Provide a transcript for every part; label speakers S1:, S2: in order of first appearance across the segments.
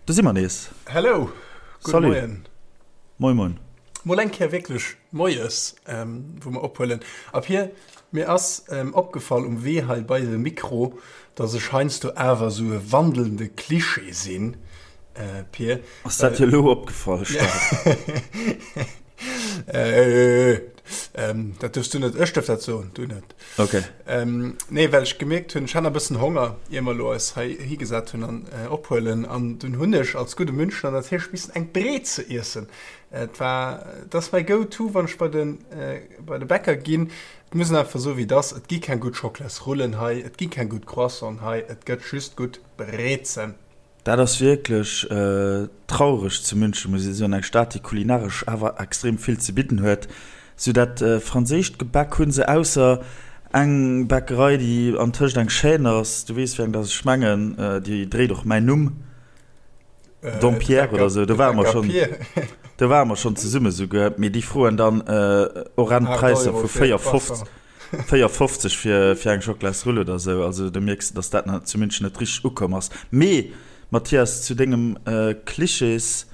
S1: Do si mer nees.
S2: Hello, gudde
S1: Salut.
S2: Moien.
S1: Moin moin.
S2: Mol eng Kéier wierklech moies, wou mer ophuelen. A Pir, mir ass opgefall um Wee hei bei de Mikro, dass ech heiansdo awer esou e wandelnde Klischee sinn, Pir.
S1: Ass dat dir elo opgefall, Steph?
S2: Dat duerfs du net, ech duerf dat soen, du net.
S1: Okay.
S2: Nee, well ech gemierkt hunn, ech hat nach e bëssen Honger, ier mer elo eis hei higesat hunn an ophuelen. An dunn hunn ech als gudde Münchner natierlech missen eng Breze iessen. Et war, et ass mäi Go-to, wann ech bei de, bei de Bäcker ginn. Et muss een einfach soen, wéi et ass, Et gi keng gutt Schockelasrullen hei, et gi keng gutt Croissanten hei, et gëtt just gutt Brezen.
S1: Dat ass wierklech traureg zu München, muss ee soen, eng Stad, déi kulinaresch awer extrem vill ze bidden huet. Sou dat franséischt Gebäck hu se, ausser eng Bäckerei, déi antëscht eng Chaîne ass, du weess wéi eng dass ech mengen, déi dréit och mäin Numm, Dompierre oder sou, do ware mer schonn, do ware mer schonn zesumme souguer, mee déi froen dann horrend Präisser vu 4,50. 4,50 fir fir eng Schocklasrull oder sou, also do mierks de, dass dat nach zu München net richteg ukomm ass. Mee Mathias, zu dengem Klischees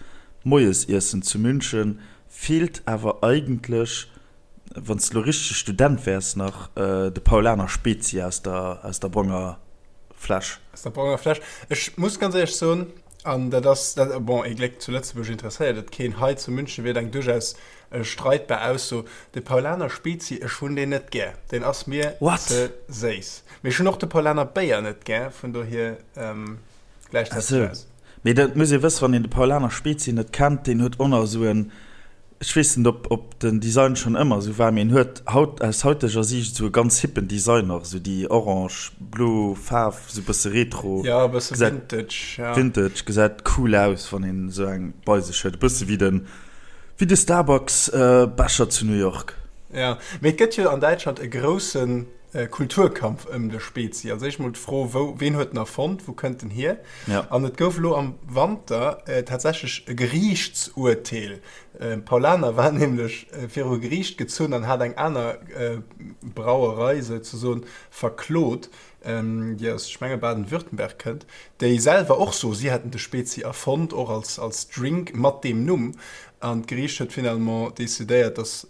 S1: Moiesiessen zu München feelt awer eigentlech, wann s de lo richtege Student wäers, nach de Paulaner Spezi aus der aus der bronger Fläsch.
S2: Aus der bronger Fläsch. Ech muss ganz éierlech soen, an dat ass dat, bon, ee Gléck zu Lëtzebuerg interesséiert et keen, hei zu München wier et eng duerchaus Streitbar Ausso. De Paulaner Spezi, ech hunn deen net gär. Deen ass mir ze séiss. Mee ech hunn och de Paulaner Béier net gär, vun dohier gläicht dat sech aus.
S1: Mee dat muss ee wëssen, wann een de Paulaner Spezi net kennt, deen huet och nach esou en, ech weess net ob ob den Design schonn ëmmer esou war, mee en huet haut, aus hauteger Siicht esou e ganz hippen Design och, esou déi orange blo Faarf, esou e bësse retro.
S2: Jo, e bësse vintage,
S1: ja. Vintage, gesäit cool aus, wann een esou eng bei sech huet, e bësse wéi den. Wéi de Starbucks Becher zu New York.
S2: Jo, mee et gëtt jo an Däitschland e grousse Kulturkampf ëm de Spezi. Als éischt mol d'Fro, wou, ween huet en erfonnt, wou kënnt en hier? An et gouf elo am Wanter tatsächlech e Geriichtsurteel. Paulaner war nämlech viru Geriicht gezunn an hat eng aner Brauerei souzesoen verklot, déi aus, ech menge Baden-Württemberg kënnt, déi selwer och so, si hätten de Spezi erfonnt, och als, als Drink mat deem Numm. An d'Geriicht huet finalement decidéiert, datt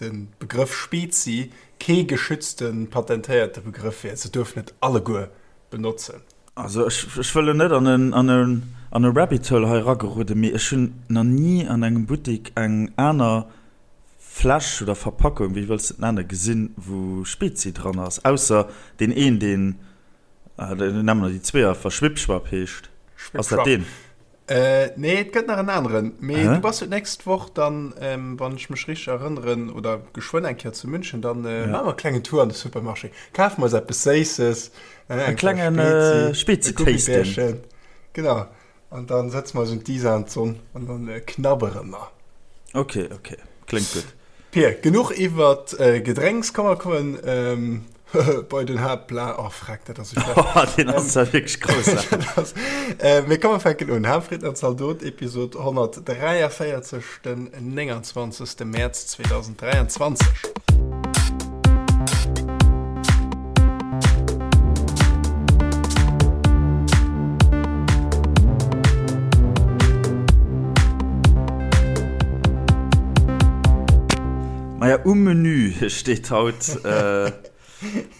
S2: de Begrëff Spezi kee geschützte, patentéierte Begrëff wier. Se duerfen et alleguer benotzen.
S1: Also ech, ech wëll elo net an en, an en, an e Rabbit Hole hei erageroden, mee ech hunn nach ni an engem Buttik eng aner Fläsch oder Verpackung, wéi wëlls de et nennen, gesinn, wou Spezi dran ass, ausser deen een, deen, nennen mer déi zwee einfach, Schwippschwapp heescht. Ass dat deen?
S2: Nee, et gëtt nach en aneren. Mee du bass jo d'nächst Woch dann, wann ech mech richteg erënneren, oder geschwënn eng Kéier zu München, dann maache mer e klengen Tour an de Supermarché, kafe mer eis eppes Séisses,
S1: e klenge Spezi-Tasting.
S2: Genau. An dann setze mer eis un d'Isar an d'Sonn an dann knabbere mer.
S1: Ok, ok, kléngt gutt.
S2: Pir, genuch iwwert Gedrénks, komm mer kommen bei den Haaptplan. Oh freck, dat ass esou
S1: schlecht. Deen ass zwar wierklech
S2: groussaarteg. Mee komm mer fänken un. Haaptfrieden an Zaldot, Episod 143, den 29. Mäerz 2023.
S1: Maja, um Menü steet haut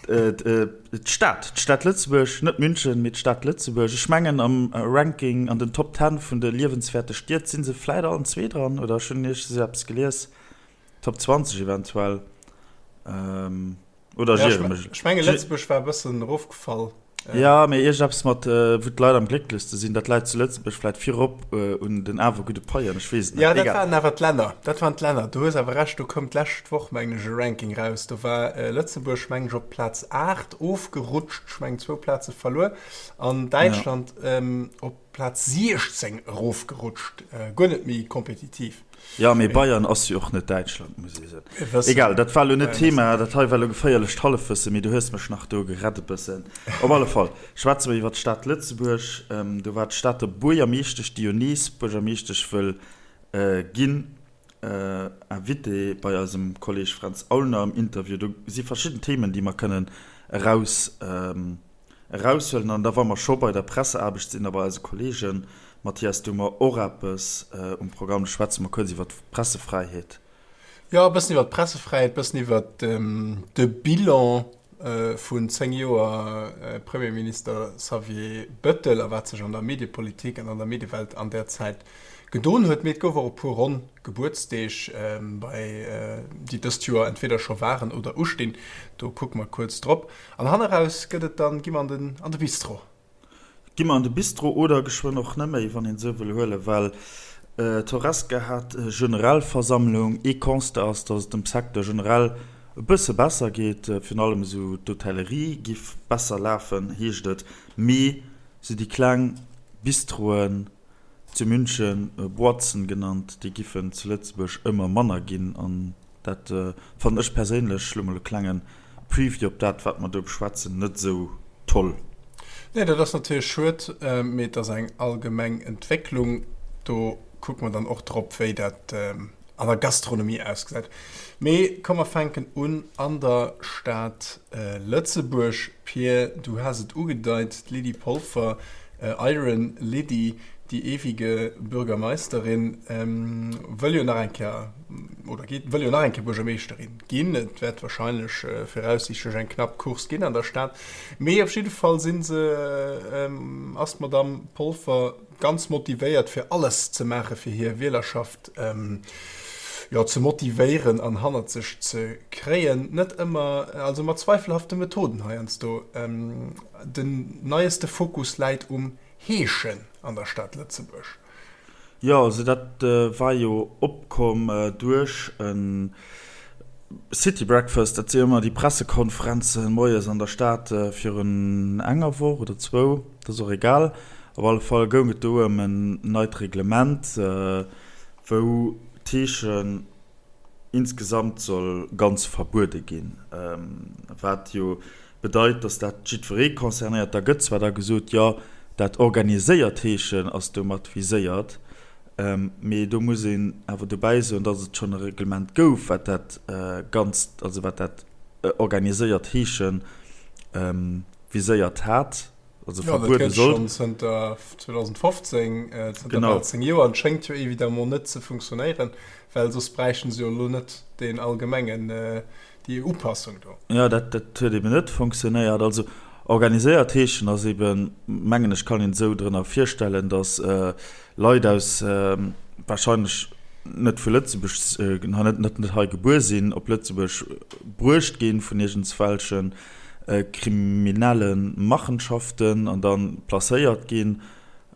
S1: d'Stad, d'Stad Lëtzebuerg, net München, mee d'Stad Lëtzebuerg. Ech mengen am Ranking an den Top Ten vun de liewenswäerte Stied si se vläit allen zwee dran, oder ech hunn iergends eppes gelies. Top 20 eventuell. Ähm, oder
S2: ja, ich, mech. Ech menge Lëtzebuerg war e bëssen erofgefall.
S1: Äh. Ja, mee iergendeppes mat, äh, wou d'Leit am glécklechste sinn, dat läit zu Lëtzebuerg vläit virop äh, un den awer gudde Paien, ech weess et
S2: net. Ja, dat waren awer d'Länner. Dat waren d'Länner. Du hues awer Recht, do koum d'lescht Woch, mengen ech, e Ranking raus. Do war äh, Lëtzebuerg, mengen ech, op Plaz 8 ofgerutscht, ech mengen zwou Plaze verluer, an Däitschland ja. ähm, op Plaz 16 erofgerutscht, äh, guer net méi kompetitiv.
S1: Jo, mee Bayern ass jo och net Däitschland, muss ee soen. Egal, dat war elo net d'Thema, dat hei war elo geféierlecht Hallefwëssen, mee du hues mech nach do gerett e bëssen. Op alle Fall schwätze mer iwwer d'Stad Lëtzebuerg. Do war d'Stater Buergermeeschtesch, déi jo nees Buergermeeschtesch wëll ginn, Invitée bei eisem Kolleeg Fränz Aulner am Interview. Do si verschidden Themen, déi mer kënnen eraus eraushuelen. An da wa mer scho bei der Presseaarbecht sinn a bei eise Kolleegen. Mathias, du hu mer och eppes um Programm. Do schwätze mer kuerz iwwer d'Pressefräiheet.
S2: Jo, e bëssen iwwer d'Pressefräiheet, e bëssen iwwer de Bilan vun 10 Joer Premierminister Xavier Bettel a wat sech an der Mediepolitik an an der Mediewelt an där Zäit gedon huet. Mee et gouf och e puer ronn Gebuertsdeeg, bei déi dëst Joer entweder scho waren oder ustinn. Do kucke mer kuerz drop. An hanneraus gëtt et dann, gi mer an de Bistro.
S1: Gi mer an de Bistro oder geschwënn och neméi, wann een esou wëll huelen, well d'Horesca hat Generalversammlung. Ee Constat ass, datt et dem Secteur generell e bësse besser geet, virun allem esou d'Hotellerie giff besser lafen, heescht et, mee esou déi kleng Bistroen, zu München Boîten genannt, déi giffen zu Lëtzebuerg ëmmer manner ginn an dat fannen ech perséinlech, lo mol e klengen Preview op dat wat mer do beschwätzen, net esou toll.
S2: Nee, dat ass natierlech schued, mee et ass eng allgemeng Entwécklung. Do kucke mer dann och drop, wéi dat an der Gastronomie ausgesäit. Mee komm mer fänken un an der Stad Lëtzebuerg. Pir, du has et ugedeit, d'Lydie Polfer, Iron Lydie, die ewige Bürgermeisterin, wëll jo nach eng Kéier, oder geet, wëll jo nach eng Kéier Buergermeeschterin ginn. Et wäert wahrscheinlech viraussiichtlech eng knapp Course ginn an der Stad. Mee op jidde Fall si se, ass d'Madamm Polfer ganz motivéiert fir alles ze maache fir hir Wielerschaft jo ze motivéieren an hannert sech ze kréien. Net ëmmer, also mat zweifelhafte Methoden heiansdo. Den neieste Fokus läit um Heeschen an der Stad Lëtzebuerg.
S1: Jo, also dat war jo opkomm duerch e City Breakfast, dat si jo ëmmer déi Pressekonferenzen moies an der Stad virun enger Woch oder zwou, dat ass och egal. Op alle Fall goung et do ëm en neit Reglement, wou d'Heeschen insgesamt soll ganz verbuede ginn, wat jo bedeit, datt dat jiddweree concernéiert. Da gëtt zwar da gesot, jo, dat organiséiert Heeschen ass domat viséiert, mee do muss een awer dobäi soen, datt et schonn e Reglement gouf, wat dat Ganzt, also wat dat organiséiert Heesche viséiert hat.
S2: Also ja, verbuede soll. Schon zënter 2015, äh, zënter genau. 10 Joer an schéngt jo évidemment net ze funktionéieren, well soss bräichten se jo lo net den allgemengen äh, déi Upassung do.
S1: Ja, dat, dat huet eben net funktionéiert. Also organiséiert heeschen ass eben, mengen ech, kann een esou drënner virstellen, datt äh, Leit aus äh, wahrscheinlech net vu Lëtzebuerg, äh, net, net, net hei gebuer sinn, op Lëtzebuerg bruecht ginn vun iergendswelchen kriminelle Machenschaften an dann placéiert ginn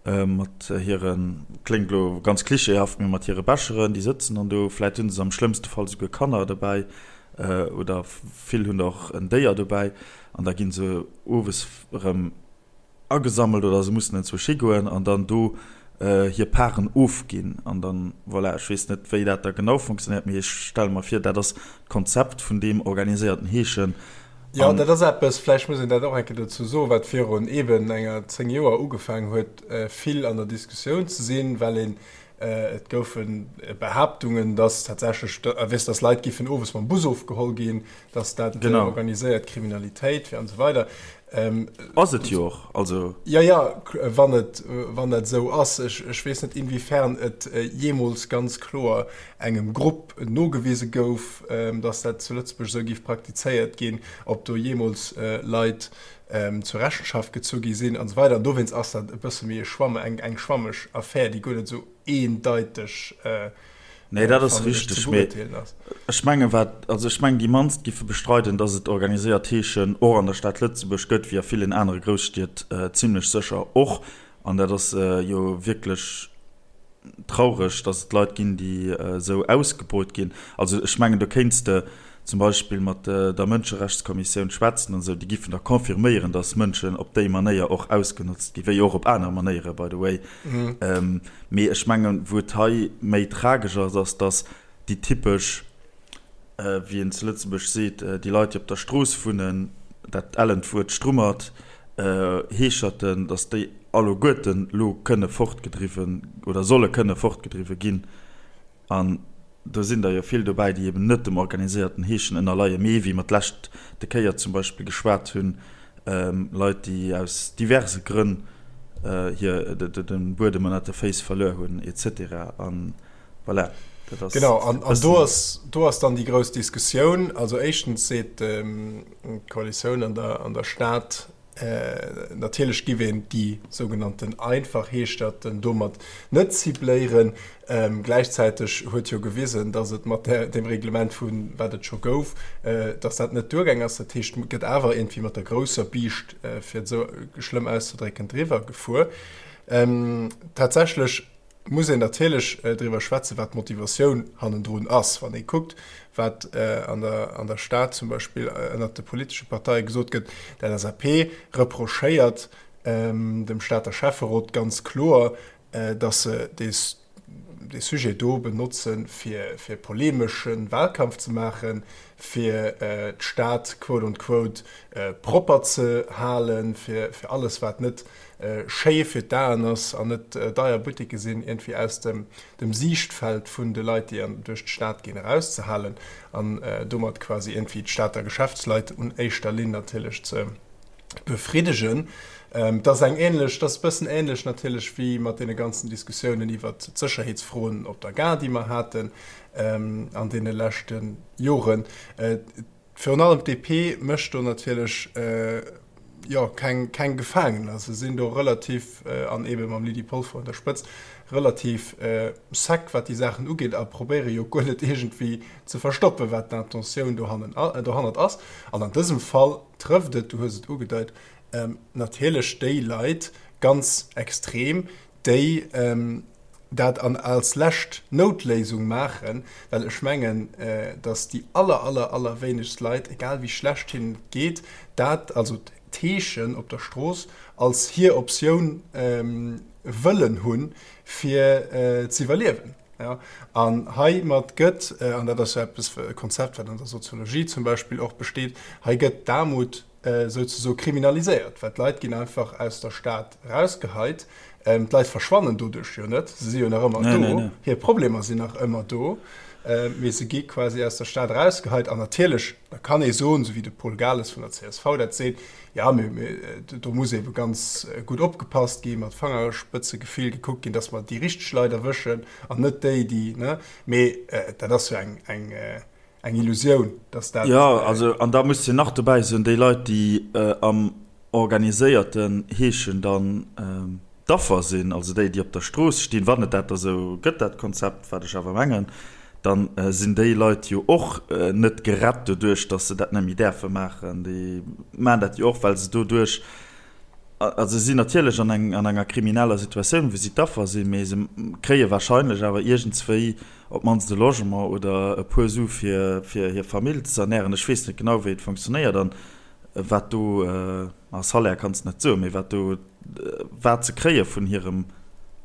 S1: mat hiren, kléngt elo ganz klischeehaft, mee mat hire Becheren, déi sëtzen dann do, vläit hunn se am schlëmmste Fall souguer Kanner dobäi oder vill hunn och en Déier dobäi an da gi se owes erëm agesammelt oder se mussen enzwousch higoen an dann do hir Paren ofginn an dann, voilà, ech weess net wéi dat da genau funktionéiert, mee ech stelle mer vir, dat ass d'Konzept vun deem organiséierten Heeschen.
S2: Jo, dat ass eppes, vläicht muss een dat och eng Kéier dozou soen, wat virun eeben enger 10 Joer ugefaangen huet vill an der Diskussioun ze sinn, well een, et goufe Behaaptungen, dass tatsächlech, weess, dass Leit giffen owes mam Bus ofgeholl ginn, dass dat organiséiert Kriminalitéit wier an esou weider.
S1: Ass et jo och, also.
S2: Jo, jo, wann et, wann dat esou ass. Ech, ech weess net, inwiefern et jeemools ganz kloer engem Grupp nogewise gouf, dass dat zu Lëtzebuerg esou géif praktizéiert ginn, ob do jeemools Leit zur Rechenschaft gezu gi sinn an esou weider. An dowéinst ass dat e bësse méi e Schwamm, eng, eng schwammeg Affär, déi guer net esou eendeiteg
S1: Nee, dat ass richteg, mee ech menge wat, also ech mengen déi mannst giffe bestreiden, datt et organiséiert Heeschen och an der Stad Lëtzebuerg gëtt, wéi a villen anere Grousstied zimlech sécher och. An dat ass jo wierklech traureg, datt et Leit ginn, déi esou ausgebeut ginn. Also ech mengen, do kéints de zum Beispill mat der Mënscherechtskommissioun schwätzen an esou, déi giffen der confirméieren, datt Mënschen op déi Manéier och ausgenotzt ginn, wéi och op aner Manéiere by the way. Mee ech mengen, wou et hei méi tragesch ass, ass, datt déi typesch, wéi een zu Lëtzebuerg seet, déi Leit, déi op der Strooss wunnen, dat ellent Wuert Strummert, Heescherten, datt déi alleguerten elo kënne fortgedriwwen oder solle kënne fortgedriwwe ginn. An do sinn der jo vill dobäi, déi eben net dem organiséierten Heeschen ënnerleien, mee wéi mer d'lescht de Kéier zum Beispill geschwat hunn, Leit, déi aus diverse Grënn. Hir de Buedem ënnert de Féiss verluer hunn, et cetera. An voilà,
S2: dat ass. Genau, an do ass, do ass dann déi grouss Diskussioun. Also éischtens seet d'Koalitioun an der, an der Stad, natierlech giff een déi sougenannten einfach Heeschterten domat net cibléieren. Gläichzäiteg huet jo gewisen, datt et mat deem Reglement, vu wat et scho gouf, datt dat net duergaang ass. Dat heescht, et gëtt awer iergendwéi mat der grousser Biischt, fir et esou schlëmm auszedrécken, driwwer gefuer. Tatsächlech muss een natierlech driwwer schwätzen, wat d'Motivatioun hannendrun ass. Wann ee kuckt, wat an der Stad zum Beispill ënnert de politesche Parteie gesot gëtt, D'LSAP reprochéiert dem Stater Schäfferot ganz kloer, dass se dee Sujet do benotzen, fir polemesche Wahlkampf ze maachen, fir d'Stad quote on quote propper ze halen, fir alles, wat net schéi fir d'Aen ass an net deier Butticke sinn, iergendwéi aus dem Siichtfeld vun de Leit, déi duerch d'Stad ginn, erauszehalen an domat quasi iergendwéi d'Stater Geschäftsleit un éischter Linn natierlech ze befriddegen. Et ass eng ähnlech, et ass e bëssen ähnlech natierlech wéi mat deene ganzen Diskussiounen iwwert d'Sécherheetsfroen op der Gare, déi mer haten an deene leschte Joren. Virun allem d'DP mécht do natierlech, jo, keng, keng Gefaangener. Se sinn do relativ, an eebe mam Lydie Polfer un der Spëtzt, relativ sec, wat déi Saachen ugeet a probéiere jo guer net iergendwéi ze verstoppen, wat d'Intentioun dohannen, dohannert ass. An an dësem Fall trëfft et, du hues et ugedeit, natierlech déi Leit ganz extrem, déi dat an als lescht Noutléisung maachen, well ech mengen, datt déi aller, aller, allerwéinegst Leit, egal wéi schlecht hinnen et geet, dat, also d'Heeschen op der Strooss, als hir Optioun wëllen hunn, fir z'iwwerliewen. An heimat gëtt, an dat ass jo eppes, e Konzept, wat an der Soziologie zum Beispill och besteet, hei gëtt d'Aarmut souzesoe kriminaliséiert, well d'Leit ginn einfach aus der Stad erausgeheit. D'Leit verschwannen doduerch jo net, se si jo nach ëmmer do, hir Problemer sinn nach ëmmer do, mee se gi quasi aus der Stad erausgeheit. An natierlech, da kann ee soen, esou wéi de Paul Gales vun der csv dat seet, Jo, mee do muss eebe ganz gutt opgepasst ginn, mat Fangerspëtzegefill gekuckt ginn, dass mer déi richteg Leit erwëschen an net déi, déi, ne? Mee dat ass jo eng, eng, eng Illusioun, dass dat.
S1: Jo, also, an da muss de nach dobäi soen, déi Leit, déi am organiséierten Heeschen dann d'Affer sinn, also déi, déi op der Strooss stinn, wann et dat da sou gëtt, dat Konzept, wat ech awer mengen, da sinn déi Leit jo och net gerett doduerch, datt se dat net méi däerfe maachen. Déi maachen dat jo och, well se doduerch, also se sinn natierlech an eng, an enger krimineller Situatioun, wou si d'Affer sinn, mee se kréie wahrscheinlech awer iergendswéi op d'mannst e Logement oder e puer Su fir, fir hir Famill ze ernären. Ech weess net genau, wéi et funktionéiert an wat do. Ma Salaire kanns de net soen, mee wat do wat se kréie vun hirem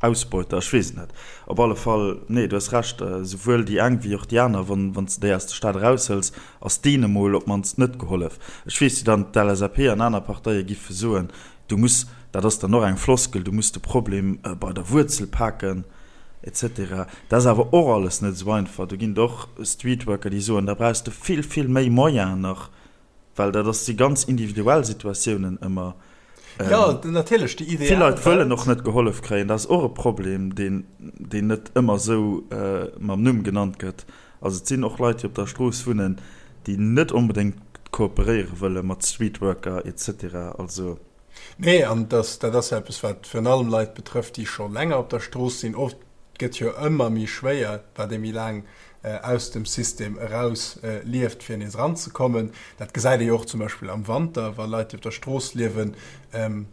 S1: Ausbeuter, ech weess et net. Op alle Fall, nee, du hues Recht, esouwuel déi eng wéi och déi aner, wann wann s de déi aus der Stad eraushëls, ass deene mol op d'mannst net gehollef. Ech weess, wéi dann d'LSAP an aner Parteie giffe soen, du muss, dat ass dann och eng Floskel, du muss de Problem bei der Wuerzel paken, et cetera. Dat ass awer och alles net esou einfach. Do ginn et och Streetworker, déi soen, da brauchs de vill, vill méi Moyenen nach. Well dat ass si ganz individuell Situatiounen ëmmer.
S2: Jo, natierlech, déi
S1: ideal Vill Leit wëllen och net gehollef kréien. Dat ass och e Problem, deen, deen net ëmmer esou mam Numm genannt gëtt. Also et sinn och Leit, déi op der Strooss wunnen, déi net onbedéngt kooperéiere wëlle mat Streetworker et cetera. Also.
S2: Nee, an dat, dat ass jo eppes, wat virun allem Leit betrëfft, déi scho länger op der Strooss sinn. Oft gëtt jo ëmmer méi schwéier, wat ee méi laang aus dem System eraus lieft, fir nees eranzekommen. Dat gesäit ee jo och zum Beispill am Wanter, wa Leit, déi op der Strooss liewen,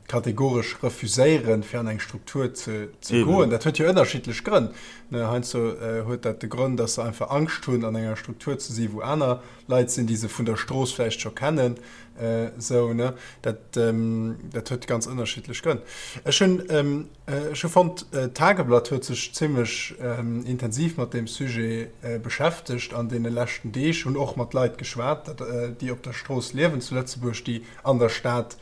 S2: kategoresch refuséieren, fir an eng Struktur ze goen. Dat huet jo ënnerschiddlech Grënn. Heiansdo huet dat de Grond, dass se einfach Angscht hunn, an enger Struktur ze sinn, wou aner Leit sinn, déi se vun der Strooss vläicht scho kennen. Esou, ne? Dat huet ganz ënnerschiddlech Grënn. Ech hunn. Ech hu fonnt, d'Tageblatt huet sech zimmlech intensiv mat deem Sujet beschäftegt an deene leschten Deeg, hunn och mat Leit geschwat, déi op der Strooss liewen zu Lëtzebuerg, déi an der Stad.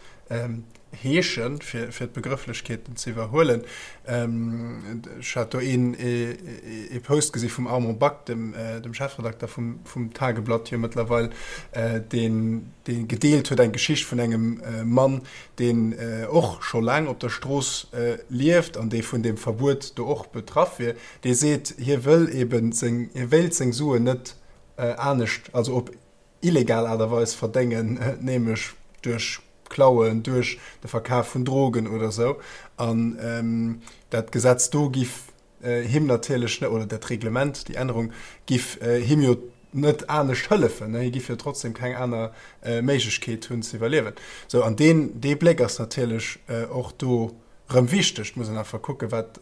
S2: Heeschen, fir d'Begrëfflechkeeten ze iwwerhuelen. Ech hat do een ee Post gesi vum Armand Back, dem Chefredakter vum Tageblatt jo mëttlerweil, deen gedeelt huet eng Geschicht vun engem Mann, deen och scho laang op der Strooss lieft an dee vun deem Verbuet do och betraff wier. Dee seet, hie wëll eben seng, hie wéilt seng Suen net anescht, also op illegal Aart a Weis verdéngen, nämlech duerch Klauen, duerch de Verkaf vun Drogen oder esou. An dat Gesetz do giff him natierlech net, oder dat Reglement, déi Ännerung giff him jo net anescht hëllefen, hie giff jo trotzdem keng aner Méiglechkeet hunn ze iwwerliewen. Sou, an deen, dee Bléck ass natierlech och do rëm wichteg. Et muss een einfach kucken, wat,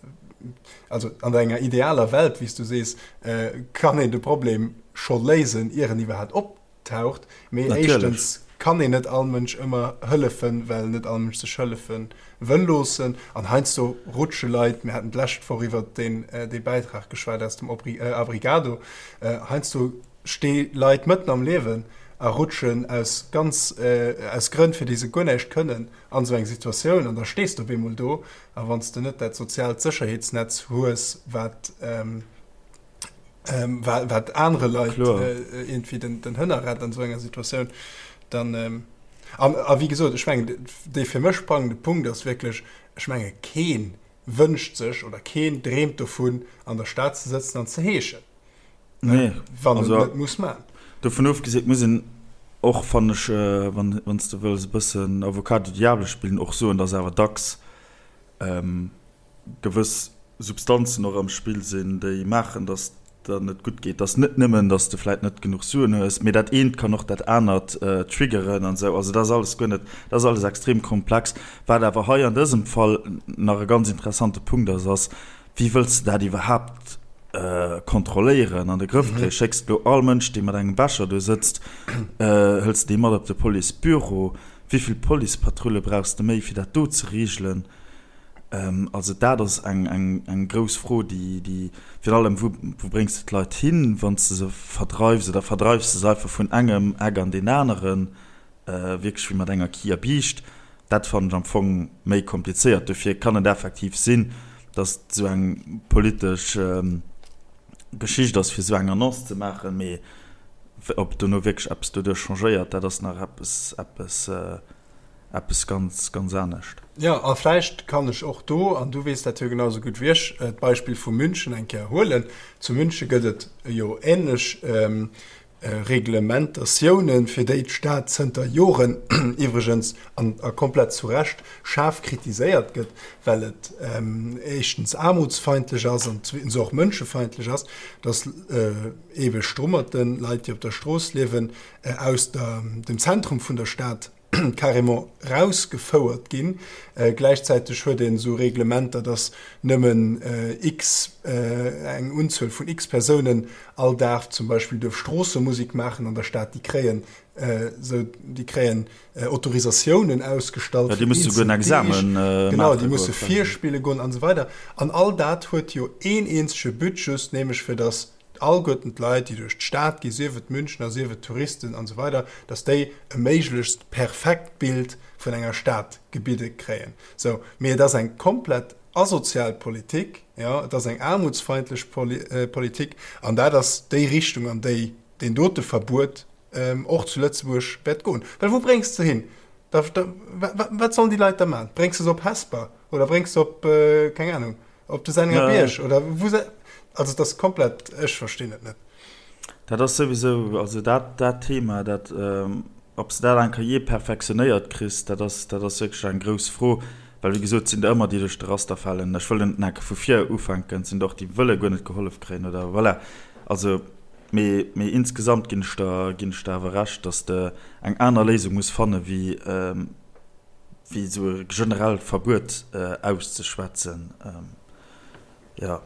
S2: also an enger idealer Welt, wéi s du sees, kann een de Problem scho léisen, ier en iwwerhaapt optaucht. Mee éischtens kann een net all Mënsch ëmmer hëllefen, well net all Mënsch sech hëllefe wëll loossen. An heiansdo rutsche Leit, mir haten d'lescht Woch iwwert deen, dee Bäitrag geschwat aus dem Abrigado, heiansdo sti Leit mëtten am Liewen a rutschen aus ganz, aus Grënn, fir déi se guer näischt kënnen, an esou eng Situatioun. An da stees de op eemol do. A wann s de net dat soziaalt Sécherheetsnetz hues, wat, wat anere Leit iergendwéi den Hënner rett an esou enger Situatioun, dann an a wéi gesot, ech mengen, dee fir mech sprangende Punkt ass wierklech, ech menge kee wënscht sech oder keen dreemt dovun, an der Stad ze sëtzen an ze heeschen,
S1: Nee,
S2: wann en et net muss man.
S1: Dovun ofgesinn, muss een och, fannen ech, wann s de wëlls e bëssen Avocat du diable spillen, och soen, dass awer dacks gewëss Substanzen och am Spill sinn, déi maachen, datt der net gutt geet. Datt net nëmmen, datt s de vläit net genuch Suen hues, mee dat eent kann och dat anert triggeren an esou. Also dat ass alles guer net, dat ass alles extrem komplex. Wat awer hei an dësem Fall nach e ganz interessante Punkt ass, ass, Wéi wëlls de dat iwwerhaapt kontrolléieren, an de Grëff kréien? Schécks de elo all Mënsch, dee mat engem Becher do sëtzt, hëls de dee mat op de Policebüro? Wéi vill Policepatrulle brauchs de méi, fir dat do ze reegelen? Also dat ass eng grouss Fro, déi virun allem, wou bréngs de d'Leit hin, wann s de se verdreifs, oder verdreifs de se einfach vun engem Eck an deen aneren, wierklech wéi mat enger Kierbiischt? Dat fannen ech am Fong méi komplizéiert. Dofir kann et effektiv sinn, datt et esou eng politesch Geschicht ass, fir esou eng Annonce ze maachen, mee ob dono wierklech eppes doduerch changéiert, dat ass nach eppes, eppes. Eppes ganz, ganz anescht.
S2: Jo, a vläicht kann ech och do, an du weess dat jo genau esou gutt wéi ech, d'Beispill vu München eng Kéier huelen. Zu Münche gëtt et jo ähnlech Reglementatiounen, fir déi d'Stad zënter Joren iwwregens, an a komplett zu Recht, schaarf kritiséiert gëtt, well et éischtens aarmutsfeindlech ass an zweetens och mënschefeindlech ass, dass eebe Strummerten, Leit, déi op der Strooss liewen, aus der, dem Zentrum vun der Stad carrément rausgefouert ginn. Gläichzäiteg huet een esou Reglementer, dass nëmmen x, eng Unzuel vun x Persounen all Dag zum Beispill duerf Stroossemusik maachen an der Stad. Déi kréien esou, déi kréien Autorisatiounen ausgestallt
S1: fir eenzel Deeg.
S2: Genau, déi musse virspille goen an esou weider. An all dat huet jo een eenzege But, just nämlech fir dass alleguerten d'Leit, déi duerch d'Stad ginn, sief et Münchner, sief et Touristen an esou weider, dass déi e méiglechst perfekt Bild vun enger Stad gebidde kréien. Sou, mee et ass eng komplett asozial Politik, jo, et ass eng aarmutsfeindlech Politik an dat ass déi Richtung, an déi deen dote Verbuet och zu Lëtzebuerg wäert goen. Well wou bréngs de se hin? Da, da, wat sollen déi Leit da maachen? Bréngs de se op Hesper oder bréngs se op, keng Anung, Op de Senninger Bierg oder wou se, also et ass komplett, ech verstinn et net.
S1: Dat ass souwisou, also dat dat Thema, dat ob s de dat eng Kéier jee perfektionéiert kriss, dat ass dat ass wierklech eng grouss Fro, well wéi gesot, et sinn der ëmmer déi duerch de Raster falen. Ech wëll net enke vu vir ufänken, et sinn der och déi wëlle guer net gehollef kréien oder voilà. Also mee mee insgesamt ginn ech der ginn ech der awer Recht, datt s de eng aner Léisung muss fanne wéi wéi esou e generellt Verbuet auszeschwätzen. Jo,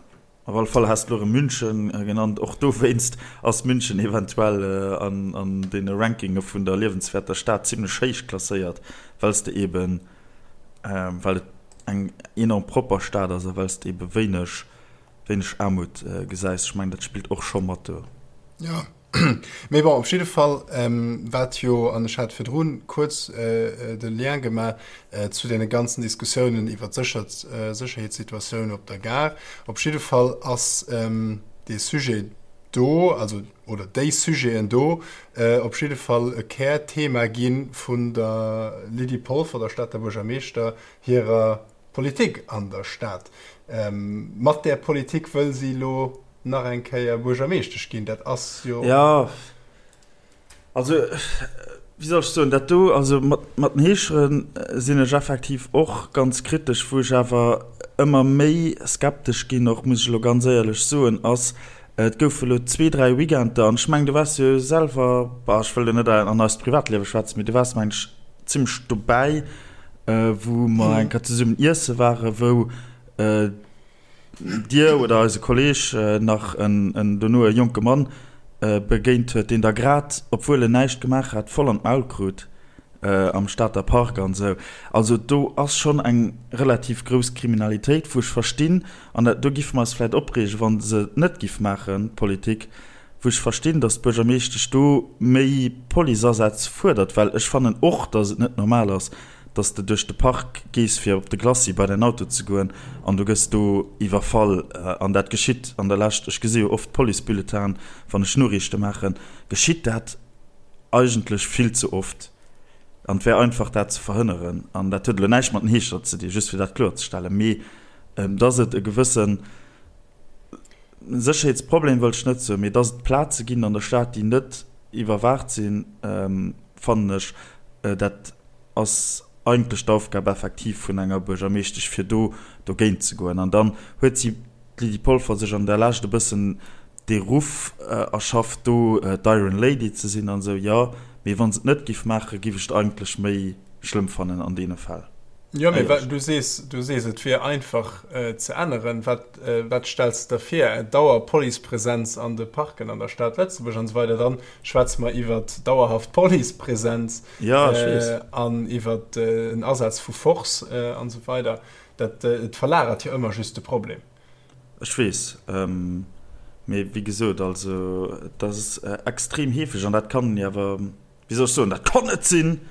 S1: op alle Fall has de elo erëm München genannt. Och dowéinst ass München eventuell an deene Rankinge vun der liewenswäerter Stad zimlech héich klasséiert, well s de eben, well et eng enorm propper Stad ass a well s de ebe wéineg, wéineg Aarmut gesäis. Ech mengen, dat spillt och scho mat do.
S2: Jo. Mee bon, op jidde Fall, wat jo, an ech hat virdru kuerz de Lien gemaach zu deene ganzen Diskussiounen iwwer d'Sécherheetssituatioun op der Gare, op jidde Fall ass dee Sujet do, also, oder déi Sujeten do op jidde Fall e Kärthema gi vun der Lydie Polfer, der Stater Buergermeeschter, hirer Politik an der Stad. Mat där Politik wëll si elo nach eng Kéier Buergermeeschtesch ginn, dat ass jo.
S1: Jo, also wéi soll ech soen, dat do, also mat mat den Heeschere sinn ech effektiv och ganz kritesch. Wou ech awer ëmmer méi skeptesch ginn och, muss ech elo ganz éierlech soen, ass, et goufe elo zwee, dräi Weekender, an ech mengen, du waars jo selwer, bah, ech wëll elo net an eist Privatliewe schwätzen, mee du waars, mengen ech, zimmlech dobäi, wou mer eng Kéier zesummen iesse waren, wou Dir oder eise Kolleg nach en dono e jonke Mann begéint huet, deen da grad, obwuel en näischt gemaach hat, voll an d'Maul krut am Stater Park an esou. Also do ass schonn eng relativ grouss Kriminalitéit, wou ech verstinn, an dat do giffe mer eis vläicht opreegen, wa se et net giff maachen, d'Politik, wou ech verstinn, datt d'Buergermeeschtesch do méi Policeasätz fuerdert, well ech fannen och, datt et net normal ass, dass de duerch de Park gees fir op de Glacis bei däin Auto ze goen an du gëss do iwwerfall an dat geschitt an der Lescht, ech gesi jo oft d'Policebulletinen wann ech Noriichte maachen, geschitt dat eigentlech vill ze oft an et wär einfach dat ze verhënneren an dat huet elo näischt mat den Heeschter ze dinn, just fir dat kloerzestellen, mee dass et e gewësse Sécherheetsproblem wëll ech net soen, mee dass et Plaze ginn an der Stad déi net iwwerwaacht sinn, fannen ech dat ass eigentlech d'Aufgab effektiv vun enger Buergermeeschtesch, fir do dogéint ze goen. An dann huet si, d'Lydie Polfer, sech an der Lescht e bëssen dee Ruff erschafft, do d'Iron Lady ze sinn an esou. Jo, mee wa se et net giff maachen, giff ech et eigentlech méi schlëmm fannen an deene Fäll.
S2: Jo, mee du sees, du sees, et wier einfach ze änneren. Wat, wat stells de der vir? Dauer-Policepresenz an de Parken an der Stad Lëtzebuerg an esou weider? Dann schwätze mer iwwert dauerhaft Policepresenz.
S1: Ja, ech weess.
S2: An iwwer en Asaz vu Force an esou weider. Dat, et verlagert jo ëmmer just de Problem.
S1: Ech weess. Mee wéi gesot, also et ass extrem heefeg an dat kann een awer, wéi soll ech soen, dat kann net sinn!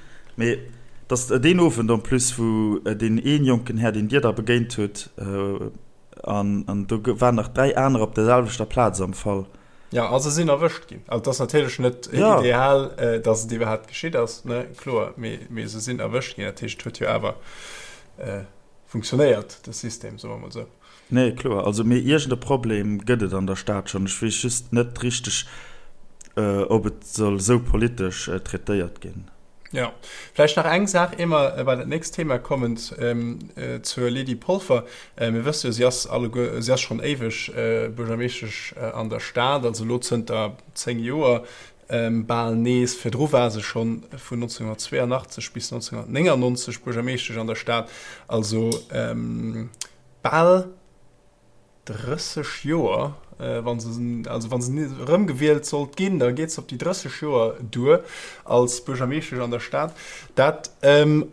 S1: Mee dass deen Owend en plus, wou deen een jonken Här, deen Dir da begéint hutt, an do waren nach 3 aner op der selwechter Plaz am Fall.
S2: Ja, a se sinn erwëscht ginn. Also, et ass natierlech net ja. ideal, äh, dass et iwwerhaapt geschitt ass, ne? Kloer, mee, mee se sinn erwëscht ginn. Dat heescht, et huet jo awer äh, funktionéiert, de System, soe mer mol esou.
S1: Nee, kloer. Also, mee iergend e Problem gëtt et an der Stad schonn. Ech weess just net richteg, äh, ob et soll esou politesch äh, traitéiert ginn.
S2: Jo, vläicht nach eng Saach, ier mer bei dat nächst Thema kommen, zur Lydie Polfer. Mir wësse jo, si ass alleguer, si ass schonn éiweg Buergermeeschtesch an der Stad, also elo zënter 10 Joer bal nees. Virdru war se scho vun 1982 bis 1999 Buergermeeschtesch an der Stad, also bal 30 Joer, wa se, also wa se erëmgewielt sollt ginn, da geet se op déi 30 Joer duer als Buergermeeschtesch an der Stad. Dat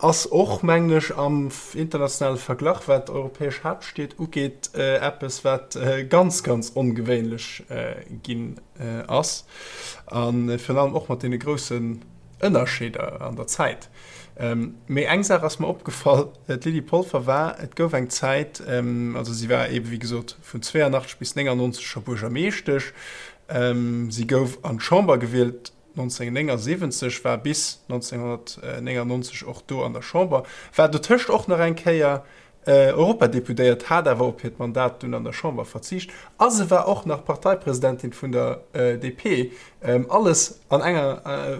S2: ass och, mengen ech, am internationale Verglach, wat europäesch Haaptstied ugeet, eppes, wat ganz, ganz ongewéinlech ginn ass. A virun allem och mat deene groussen Ënnerscheeder an der Zäit. Mee eng Saach ass mer opgefall, D'Lydie Polfer war, et gouf eng Zäit, also si war eebe wéi gesot vun 82 bis 99 scho Buergermeeschtesch, si gouf an d'Chamber gewielt 1979, war bis 1999 och do an der Chamber, war dotëscht och nach eng Kéier Europadeputéiert, hat awer op hiert Mandat dunn an der Chamber verzicht a se war och nach Parteipresidentin vun der DP. Alles an enger,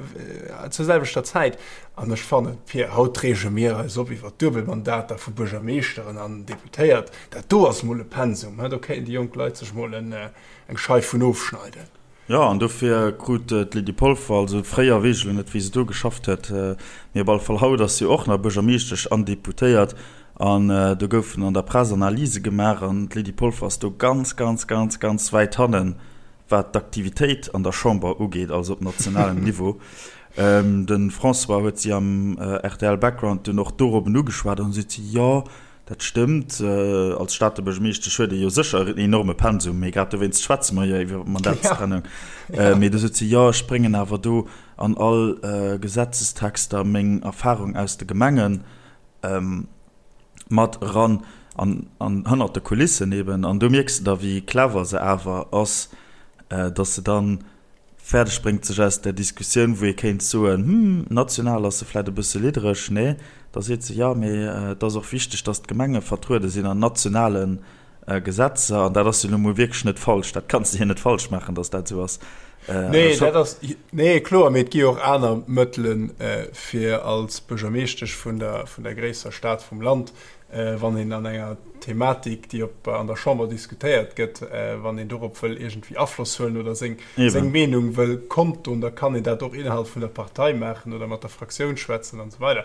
S2: zur selwechter Zäit. An ech fannen, Pir, haut reege mir eis op iwwer Duebelmandater vu Buergermeeschteren an Deputéiert. Dat do ass mol e Pensum, do kéinten déi jonk Leit sech mol eng Scheif vun ofschneiden.
S1: Jo, an dofir krut d'Lydie Polfer, also fréier, weess ech elo net, wéi se do geschafft huet, mee op alle Fall haut ass si och nach Buergermeeschtesch an Deputéiert. An do goufen an der Press Analyse gemaach an d'Lydie Polfer ass do ganz, ganz, ganz, ganz wäit hannen, wat d'Aktivitéit an der Chamber ugeet, also op nationalem Niveau. De François huet si am RTL Background dunn och dorobben ugeschwat an du seet si, jo. Dat stëmmt. Als Stater Buergermeeschtesch huet ee jo sécher en enorme Pensum, mee grad dowéinst schwätze mer jo iwwer Mandatstrennung. Mee du sot si, jo, ech bréngen awer do an all Gesetzestexter meng Erfarung aus de Gemenge mat eran an hannert de Kulissen eben. An do mierks de da, wéi clever se awer ass, datt se dann fäerdeg bréngt, sech aus där Diskussioun, wou ee kéint soen, hm, national ass se vläit e bësse liddereg, nee, da seet se, jo, mee et ass och wichteg, datt d'Gemenge vertruede sinn an nationale Gesetzer. An dat ass jo nu mol wierklech net falsch, dat kanns de hir net falsch maachen, datt dat esou ass.
S2: Nee, dat ass, nee, kloer, mee et gi jo och aner Mëttelen, fir als Buergermeeschtesch vun der, vun der gréisster Stad vum Land wann een an enger Thematik, déi op an der Chamber diskutéiert gëtt, wann een dorop wëll iergendwéi Afloss huelen oder seng seng Meenung wëll kondtun, da kann een dat och innerhalb vun der Partei maachen oder mat der Fraktioun schwätzen an esou weider.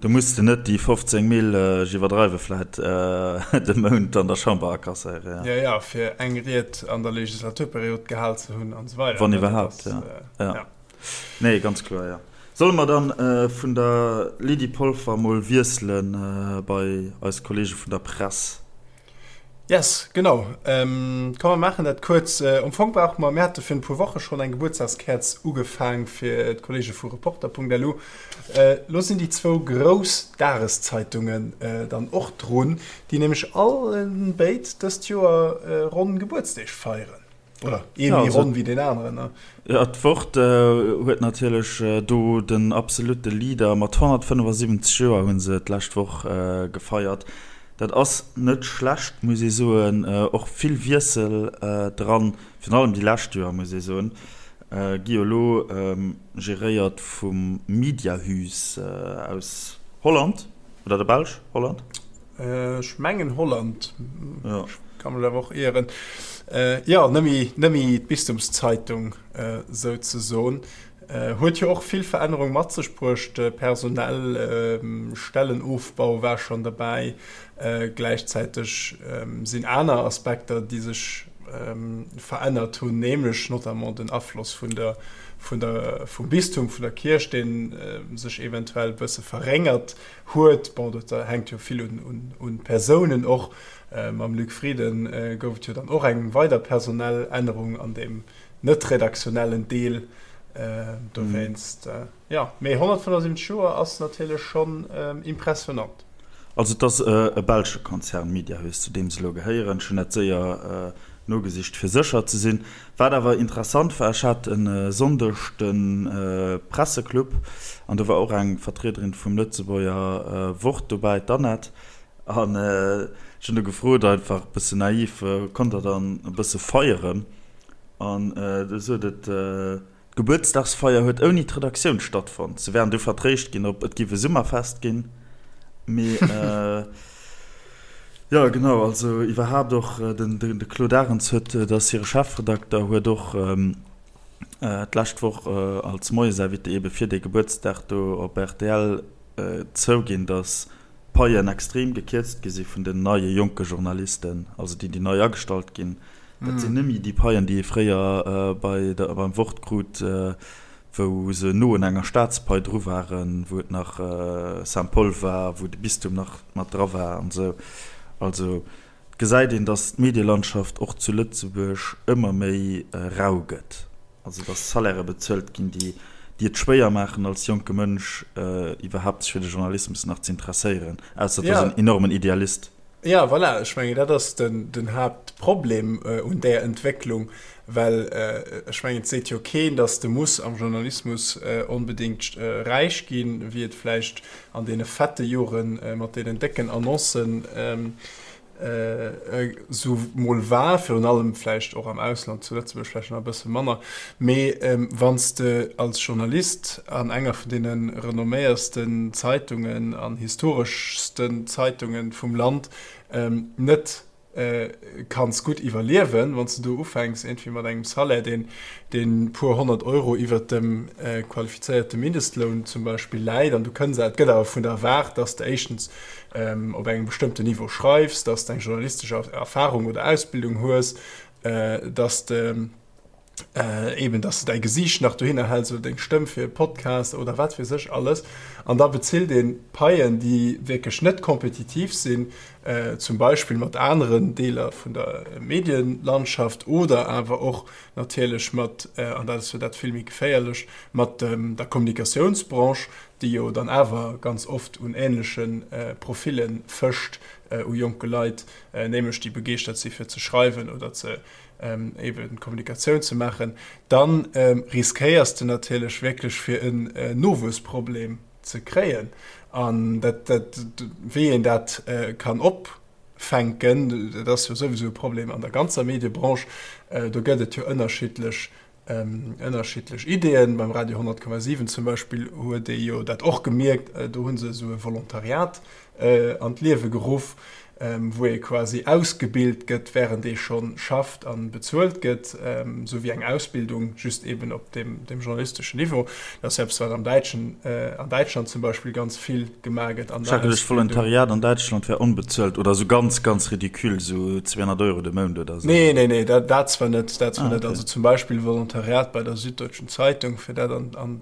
S1: Do muss de net déi 15 Mil, ech iwwerdreiwe vläit, de Mount an der Chamber akasséieren.
S2: Jo, jo, fir eng Ried an der Legislaturperiod gehal ze hunn an esou weider.
S1: Wann iwwerhaapt, jo. Nee, ganz kloer, jo. Solle mer dann vun der Lydie Polfer mol wiesselen bei eis Kollege vun der Press?
S2: Yes, genau. Komm mer maachen dat kuerz. Am Fong brauche mer, mir hate virun e puer Woche schonn eng Gebuertsdagskäerz ugefaang fir d'Kollege vu Reporter.lu. Lo sinn déi zwou grouss Dageszeitungen dann och drun, déi nämlech allen béid dëst Joer ronn Gebuertsdeeg feieren. Oder ee méi ronn wéi deen aneren, ne?
S1: Jo, d'Wort huet natierlech do den absolutte Leader. Mat 175 Joer hu se d'lescht Woch gefeiert. Dat ass net schlecht, muss ee soen. Och vill Wiessel dran, virun allem déi lescht Joer, muss ee soen. Gi jo elo geréiert vum Mediahuis aus Holland oder der Belsch? Holland?
S2: Ech mengen Holland, ech ka mech awer och ieren. Jo, nëmme d'Bistumszeitung souzesoen. Huet jo och vill Verännerung mat sech bruecht, personell, Stellenofbau war schonn derbäi. Gläichzäiteg sinn aner Aspekter, déi sech verännert hunn, nämlech notamment den Afloss vun der, vun der, vum Bistum, vun der Kierch, dee sech eventuell e bësse verréngert huet. Bon, dat hänkt jo vill un d'Persounen och. Mam Luc Frieden gouf et jo dann och eng weider personell Ännerung an deem net redaktionellen Deel. Dowéinst, jo. Mee 175 Joer ass natierlech schonn impressionant.
S1: Also et ass e belsche Konzern, Mediahuis, zu deem se elo gehéieren. Ech hunn dat séier nogesicht, fir sécher ze sinn. Wat awer interessant war, ech hat e Sonndeg de Presseclub an do war och eng Vertriederin vum Lëtzebuerger Wort dobäi, d'Annette, an ech hunn do gefrot, einfach e bëssen naiv, Konnt der dann e bësse feieren? An du sot et, D'Gebuertsdagsfeier huet ouni d'Redaktioun stattfonnt. Se wären du vertréischt ginn op et giff e Summerfest ginn, mee jo genau, also iwwerhaapt och den de Claude Arends huet, dat ass hire Chefredakter, huet och d'lescht Woch als Moiesinvité ebe fir dee Gebuertsdag do op rtl zouginn, datt d'Paien extrem gekierzt gi si vun den neie jonke Journalisten, also déi déi nei agestallt ginn. Dat sinn net méi déi Paien, déi ee fréier bei der, beim Wort krut, wou se no un enger Staatspai dru waren, wou et nach Saint-Paul war, wou de Bistum nach mat dra war an esou. Also et gesäit een, datt d'Medielandschaft och zu Lëtzebuerg ëmmer méi rau gëtt. Also datt Salairë bezuelt ginn, déi déi et schwéier maachen, als jonke Mënsch iwwerhaapt sech fir de Journalismus nach ze interesséieren, ausser et ass en enormen Idealist.
S2: Ja, voilà, ech mengen, dat ass den, den Haaptproblem un där Entwécklung, well ech mengen, et seet jo keen, datt de muss am Journalismus onbedéngt räich ginn, wéi et vläicht an deene fette Jore mat deenen décken Annoncen esou mol war, virun allem vläicht och am Ausland, zu Lëtzebuerg vläicht nach e bësse manner. Mee wann s de als Journalist an enger vun deene renomméiersten Zeitungen an historeschsten Zeitunge vum Land net kanns gutt iwwerliewen, wann s de do ufänks iergendwéi mat engem Salaire, deen deen puer 100 Euro iwwert dem qualifizéierte Mindestloun zum Beispill läit, an du kënns, et gëtt awer vun der erwaart, dass de éischtens op engem bestëmmten Niveau schreifs, dass de eng journalistesch Erfahrung oder Ausbildung hues, dass de. Eben, dass de däi Gesiicht nach dohinner häls oder deng Stëmm fir e Podcast oder wat weess ech alles. An da bezilt ee Paien, déi wierklech net kompetitiv sinn, zum Beispill mat aneren Deeler vun der Medienlandschaft oder awer och natierlech mat, an dat ass jo dat vill méi geféierlech, mat der Kommunikatiounsbranche, déi jo dann awer ganz oft un änleche Profille fëscht, u jonke Leit, nämlech déi begeeschtert si fir ze schreiwen oder ze eben Kommunikatioun ze maachen, dann riskéiers de natierlech wierklech fir en Nowuessproblem ze kréien. An dat, dat, wéi een dat kann opfänken, dat ass jo souwisou e Problem an der ganzer Mediebranche. Do gëtt et jo ënnerschiddlech ënnerschiddlech Ideeën. Beim Radio 100,7 zum Beispill huet ee jo dat och gemierkt, do hu se esou e Volontariat an d'Liewe geruff, wou ee quasi ausgebilt gëtt, wärend ee scho schafft a bezuelt gëtt, esou wéi eng Ausbildung, just eben op deem journalisteschen Niveau. Dat ass jo eppes, wat am Däitschen, an Däitschland zum Beispill ganz vill gemaach gëtt an der
S1: Schrecklech, Volontariat an Däitschland wär onbezuelt oder esou ganz, ganz ridicule, esou 200 Euro de Mount oder esou.
S2: Nee, nee, nee, dat, dat zwar net, dat zwar net. Also zum Beispill Volontariat bei der Süddeutschen Zeitung, fir dat an, an,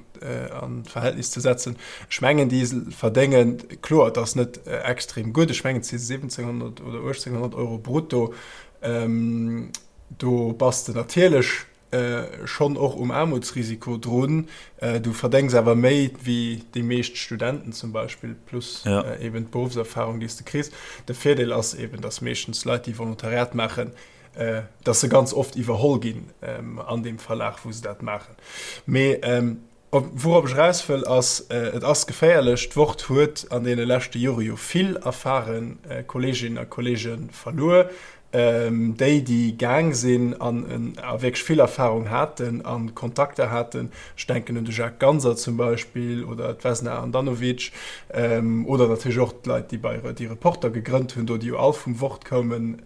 S2: an d'Verhältnis ze setzen. Ech mengen, déi verdéngen, kloer, et ass net extrem gutt, ech mengen, et si 1700 oder 1800 Euro brutto. Do bass de natierlech schonn och um Aarmutsrisiko drun. Du verdéngs awer méi wéi déi meescht Studenten zum Beispill, plus eben d'Beruffserfarung, déi s de kriss. De Virdeel ass eben, datt meeschtens Leit, déi Volontariat maachen, datt se ganz oft iwwerholl ginn an deem Verlag, wou se dat maachen. Mee Wourop ech eraus wëll ass, et ass geféierlech. D'Wort huet an deene leschte Jore jo vill erfare Kolleeginnen a Kolleege verluer, déi, déi gaang sinn an a wierklech vill Erfarung haten a Kontakter haten. Ech denken un de Jacques Ganser zum Beispill oder d'Vesna Handanovic oder natierlech och d'Leit, déi bei déi Reporter gegrënnt hunn do, déi jo all vum Wort koumen.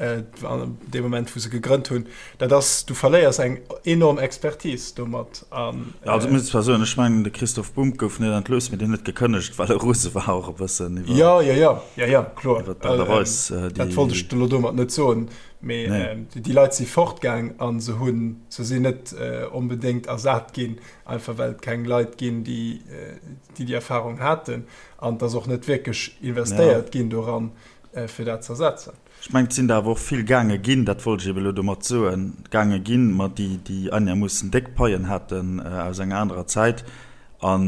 S2: Dee Moment, wou se gegrënnt hunn, dat ass, du verléiers eng enorm Expertise domat.
S1: An, also ech muss zwar soen, ech mengen de Christoph Bumb gouf net entlooss, mee deen huet gekënnegt, well e rose war och e bëssen
S2: iwwer. Jo, jo, jo, jo, jo, kloer. Iwwer d'Aart a Weis, déi. Dat wollt ech elo domat net soen, mee déi Leit si fortgaang a se hunn, se sinn net onbedéngt ersat ginn, einfach well et keng Leit ginn, déi déi Erfarung haten. An et ass och net wierklech investéiert ginn doran, fir dat ze ersetzen.
S1: Ech mengen, et sinn der awer och vill gaange ginn, dat wollt ech ebe elo domat soen, gaange ginn, ma déi, déi einermoossen déck Paien haten aus enger anerer Zäit. A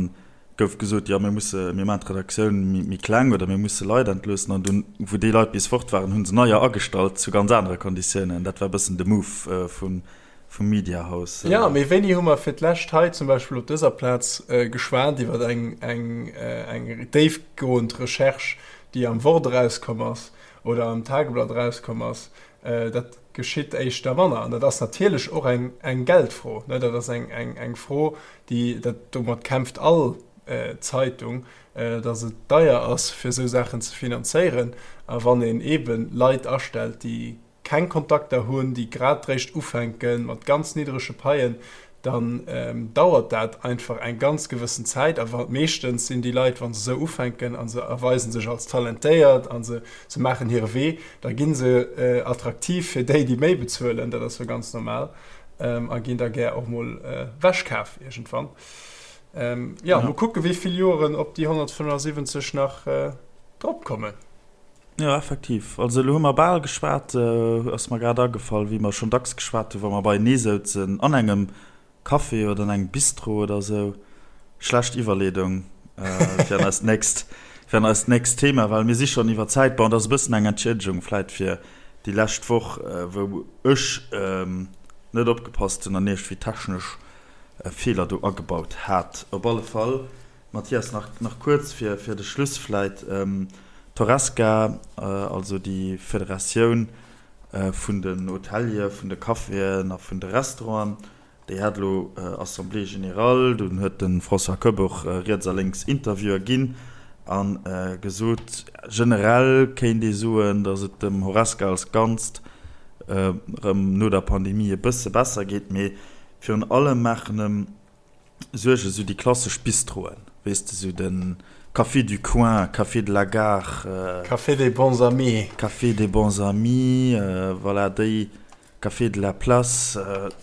S1: gouf gesot, jo mir musse, mir maachen d'Redaktioun méi kleng oder mir musse Leit entloossen. An dunn, wou déi Leit bis fort waren, hu se neier agestallt zu ganz anere Konditiounen. Dat war e bëssen de Move vum Mediahaus.
S2: Jo, mee wéini hu mer fir d'lescht hei zum Beispill op dëser Plaz geschwat iwwer eng déifgoend Recherche, déi am Wort erauskomm ass oder am Tageblatt erauskomm ass? Dat geschitt éischter manner. An dat ass natierlech och eng Geldfro. Dat ass eng Fro, déi, domat kämpft all Zeitung, datt et deier ass, fir esou Saachen ze finanzéieren. A wann een eebe Leit astellt, déi keng Kontakter hunn, déi grad réischt ufänke mat ganz niddrege Paien, dann dauert dat einfach eng ganz gewëssen Zäit. A meeschtens sinn déi Leit, wa se esou ufänken a se erweise sech als talentéiert a se se maachen hire Wee, da gi se attraktiv fir déi, déi méi bezuelen, dat ass jo ganz normal, a ginn da gär och mol ewechkaf iergendwann. Jo, mol kucke wéi vill Joren op déi 175 nach dropkommen.
S1: Jo, effektiv. Also elo hu mer bal geschwat, ass mer grad agefall, wéi mer schonn dacks geschwat hunn, wa mer beienee souzen an engem Café oder an engem Bistro oder esou. Schlecht Iwwerleedung fir an eist nächst, fir an eist nächst Thema, well mir si schonn iwwer Zäit. Bon, et ass e bëssen eng Entschiedegung vläit fir déi lescht Woch, wou ech net opgepasst hunn an iergendwéi technesch Feeler do agebaut hat. Op alle Fall. Mathias, nach, nach kuerz fir, fir de Schluss vläit. D'Horesca, also déi Federatioun vun den Hoteliere, vun de Caféen a vun de Restauranten, déi hat elo Assemblée générale. Dunn huet de François Koepp och riets a lénks Interviewer ginn a gesot, generell kéint ee soen, datt et dem Horesca als Ganzt erëm no der Pandemie e bësse besser geet, mee virun allem maachen em Suerge sou déi klassesch Bistroen, weess de, sou de Café du coin, Café de la gare,
S2: Café des bons amis.
S1: Café des bons amis, voilà, déi. Café de la Place,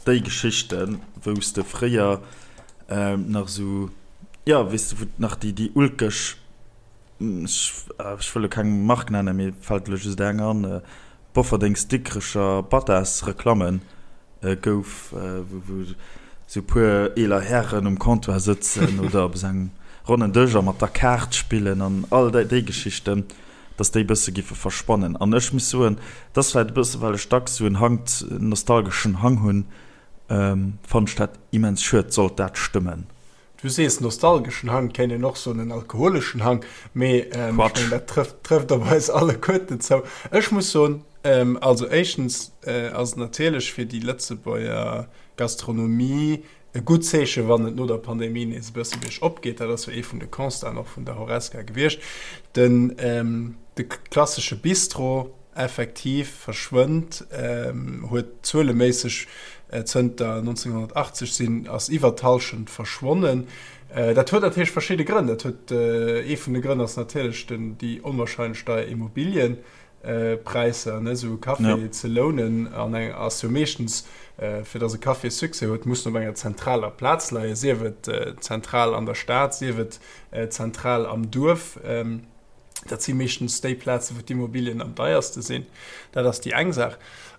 S1: déi Geschichten, wou s de fréier nach esou, jo, weess de, wou nach déi, déi ulkeg, ech wëll elo keng Mark nennen, mir fält elo just eng an, Bofferdings-Dikrecher Battas-Reklammen gouf, wou esou e puer eeler Hären um Comptoir sëtzen oder op esou engem ronnen Dësch a mat der Kaart spillen an all déi Geschichten. dass déi bësse giffe verschwannen. An ech muss soen, et ass vläit e bësse well ech dacks esou en Hang, en nostalgeschen Hang hunn, fannen ech dat immens schued, sollt dat stëmmen.
S2: Du sees nostalgeschen Hang, kéint een och soen en alkoholeschen Hang, mee ech mengen dat trëfft trëfft op eis alleguerten zou. Ech muss soen, also éischtens ass et natierlech fir déi Lëtzebuerger Gastronomie E gutt Zeeche wann et no der Pandemie nees e bësse biergop geet. Dat ass jo ee vun de Constaten och vun der Horesca gewiescht. Den de klassesche Bistro effektiv verschwënnt, huet zueleméisseg zënter 1980 sinn ass iwwer d'Hallschent verschwonnen. Dat huet natierlech verschidde Grënn. Dat huet ee vun de Grënn ass natierlech den déi onwahrscheinlech deier Immobilien. Präisser, ne, esou e Café ja. ze lounen an eng ass jo meeschtens äh, fir dass e Café Succès huet, muss op enger zentraler Plaz leien, sief et äh, zentral an der Stad, sief et äh, zentral am Duerf. Ähm, dat si meeschtens déi Plaze, wou d'Immobilien am deierste sinn. Dat ass déi eng Saach.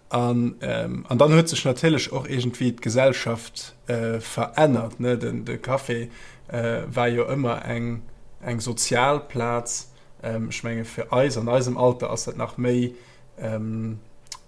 S2: An, ähm, an dann huet sech natierlech och iergendwéi d'Gesellschaft äh, verännert. Ne? Den, de Café äh, war jo ëmmer eng, eng sozial Plaz. Ech menge fir eis an eisem Alter ass dat nach méi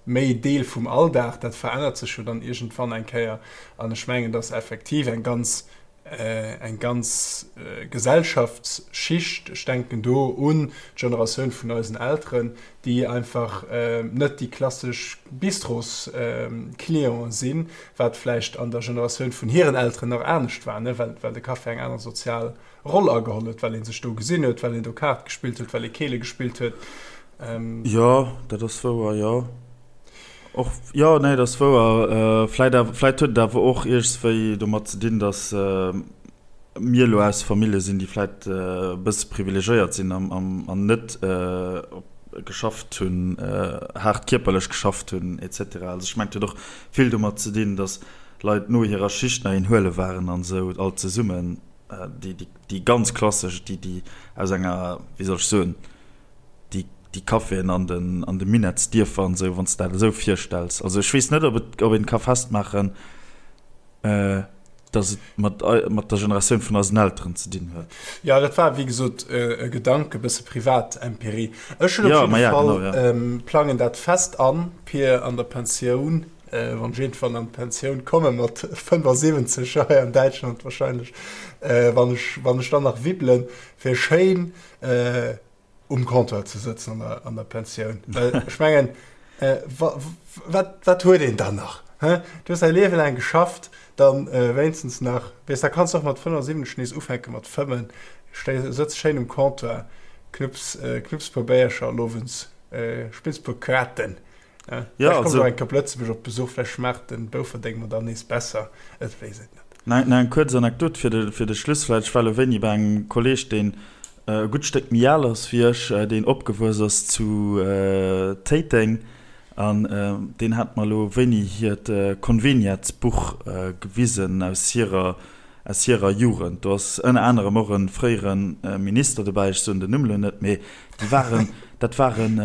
S2: méi Deel vum Alldag. Dat verännert sech jo dann iergendwann eng Kéier. An ech mengen, datt effektiv eng ganz eng ganz Gesellschaftsschicht, ech denken do un d'Generatioun vun eisen Elteren, déi einfach net déi klassesch Bistrosclienten sinn, wat vläicht an der Generatioun vun hiren Elteren nach anescht war, well de Café eng aner sozial Roll ageholl huet, well ee sech do gesinn huet, well een do Kaart gespillt huet, well ee Keele gespillt huet.
S1: Jo, dat ass wouer, jo. Och, jo, nee, dat ass wouer. Vläit awer, vläit huet et awer och iergendswéi domat ze dinn, datt mir elo aus Famillje sinn, déi vläit e bësse privilegéiert sinn an net geschafft hunn, haart kierperlech geschafft hunn, et cetera. Also ech mengen, et huet och vill domat ze dinn, datt Leit no hirer Schicht nach een huele waren an esou, all zesummen. Déi, déi, déi ganz klassesch, déi, déi aus enger, wéi soll ech soen, déi, déi Caféen an den, an de Minettsdierfer an esou, wann s de dat esou virstells. Also ech weess net, ob et, ob een ka festmaachen, dass et mat, mat der Generatioun vun eisen Elteren ze dinn huet.
S2: Jo, dat war, wéi gesot, e Gedanke, e bësse Privatempirie. Ech hunn op jidde Fall, plangen dat fest an, Pir, an der Pensioun Wann ech iergendwann an d'Pensioun komme mat 75 hei an Däitschland wahrscheinlech, wann ech, wann ech dann nach wibbelen, fir schéin um Comptoir ze sëtzen an der, an der Pensioun. Well ech mengen, wa, wat, wat huet een dann nach? Hä? Du hues däi Liewe laang geschafft, dann wéinstens nach, weess, da kanns de och mat 75 nees ufänke mat fëmmen, stéi, sëtz schéin um Comptoir, knupps, knupps e puer Béiercher an owends spills e puer Kaarten. Ja, ja also eng Kap Lëtzebuerg op Besuch, vläicht schmaacht den Bouferdeng mer dann nees besser, et weess et
S1: net. Nach eng kuerz Anekdot fir de fir de Schluss vläicht. Ech war elo wéini bei engem Kolleeg, deen e gutt Stéck méi al ass wéi ech, deen opgewuess ass zu Téiteng an deen hat mer elo wéini hiert Conveniatsbuch gewisen aus hirer aus hirer Jugend. Do ass ënner anerem och e fréiere Minister dobäi, ech soen den Numm elo net, mee déi waren, dat waren,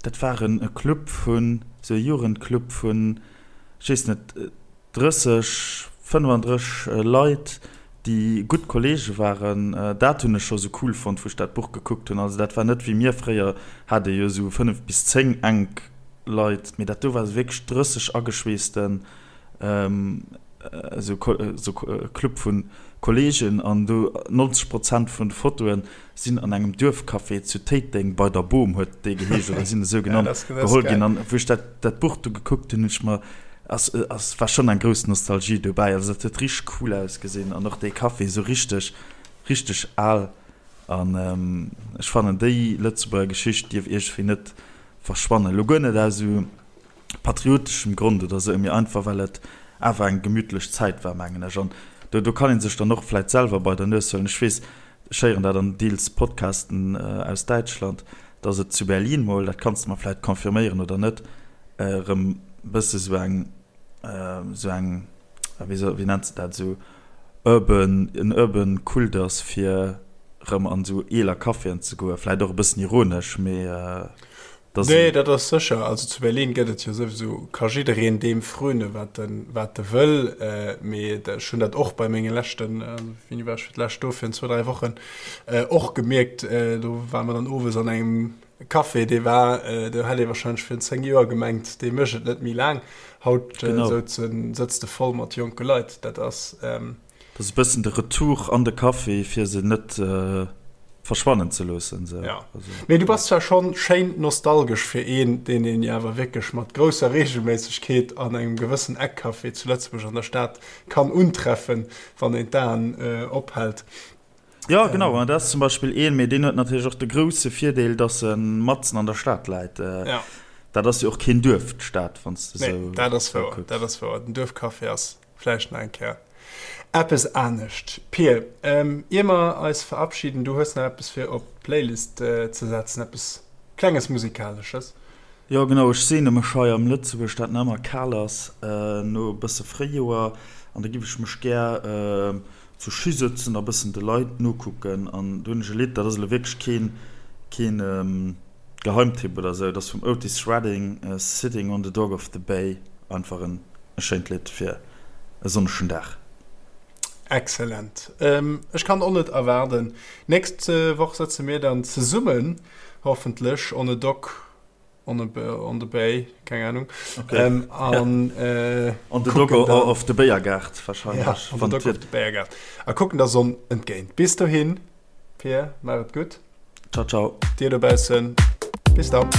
S1: Dat war en Club vun, sou e Jugendclub vun, ech weess net, 30, 35 Leit, déi gutt Kollege waren. Dat hunn ech scho sou cool fonnt, wou ech dat Buch gekuckt hunn. Also dat war net wéi mir fréier, hat ee jo sou 5 bis 10 enk Leit, mee dat do war sou wierklech 30 ageschweessten esou e Club vu Kolleegen an do 90 Prozent vun de Fotoe sinn an engem Duerfcafé zu Téiteng bei der Boom huet dee geheescht oder sinn esou genannt geholl ginn. An wou ech dat dat Buch du gekuckt hunn, hunn ech mer ass ass war schonn eng grouss Nostalgie dobäi. Also dat huet richteg cool ausgesinn an och dee Café esou richteg richteg al an ech fannen déi Lëtzebuerger Geschicht dierf iergendwéi net verschwannen. Elo guer net aus esou patrioteschem Grond oder sou, mee einfach well et awer eng gemütlech Zäit war, mengen ech. An do, do kann ee sech dann och vläit selwer bei der Nues huelen. Ech weess, ech héieren dat an deels Podcasten aus Däitschland, dass et zu Berlin mol, dat kanns de mer vläit confirméieren oder net, erëm. Bësse sou eng, sou eng, wéi soll, wéi nennt se dat, sou urban, en urban Kult ass, fir rëm an sou eeler Caféen ze goen. Vläit och e bëssen ironesch, mee
S2: dat ass. Nee, dat ass sécher. Also zu Berlin gëtt et jo souwisou, ka jiddereen deem fröne wat en, wat e wëll. Mee ech hunn dat och bei menge leschten, wéini war ech fir d'lescht do, virun zwou, dräi Wochen, och gemierkt. Do ware mer dann owes an engem Café, dee war, do hätt ee wahrscheinlech virun 10 Joer gemengt, dee mécht et net méi laang. Haut souzen, sëtzt e voll mat jonke Leit. Dat ass.
S1: Dat ass e bëssen de Retour an de Café, fir se net verschwannen ze loossen. Sou.
S2: Ja. Mee du bass zwar schonn schéin nostalgesch fir een, deen een jo awer wierklech mat grousser Reegelméissegkeet an engem gewëssen Eckcafé zu Lëtzebuerg an der Stad kann untreffen, wann een d'Aen ophält.
S1: Jo, genau, an dat ass zum Beispill een, mee deen huet natierlech och de grousse Virdeel, dass e matzen an der Stad läit.
S2: Ja.
S1: Dat ass jo och keen Duerf, d'Stad, wann s de
S2: Nee,
S1: esou
S2: dat ass wouer, kucks. dat ass wouer. Den Duerfcafé ass vläicht nach eng Kéier eppes anescht. Pir, ier mer eis verabschieden, du hues nach eppes fir op d'Playlist ze setzen, eppes klenges Musikalesches.
S1: Jo, genau, ech seene mech hei am Lëtzebuerg, dat nach ëmmer kal ass, no e bësse Fréijoer, an da giff ech mech gär zu Schi sëtzen a bëssen de Leit nokucken an do hunn ech e Lidd, dat ass elo wierklech keen keen Geheimtipp oder esou, dat ass vum Otis Redding, Sitting on the Dock of the Bay, einfach en e schéint Lidd fir e sonnegen Dag.
S2: Excellent. Ech kann och net erwaarden. Nächst Woch sëtze mir dann zesummen, hoffentlech, on a dock On a, on the Bay, keng Ahnung.
S1: Okay. Ähm, an, äh, on the Dog of the Béiergaart
S2: wahrscheinlich. Ja, on the Dog of the Béiergaart. A kucken der Sonn entgéint. Bis dohin, Pir, maach et gutt.
S1: Ciao, ciao.
S2: Dir dobaussen, bis dann.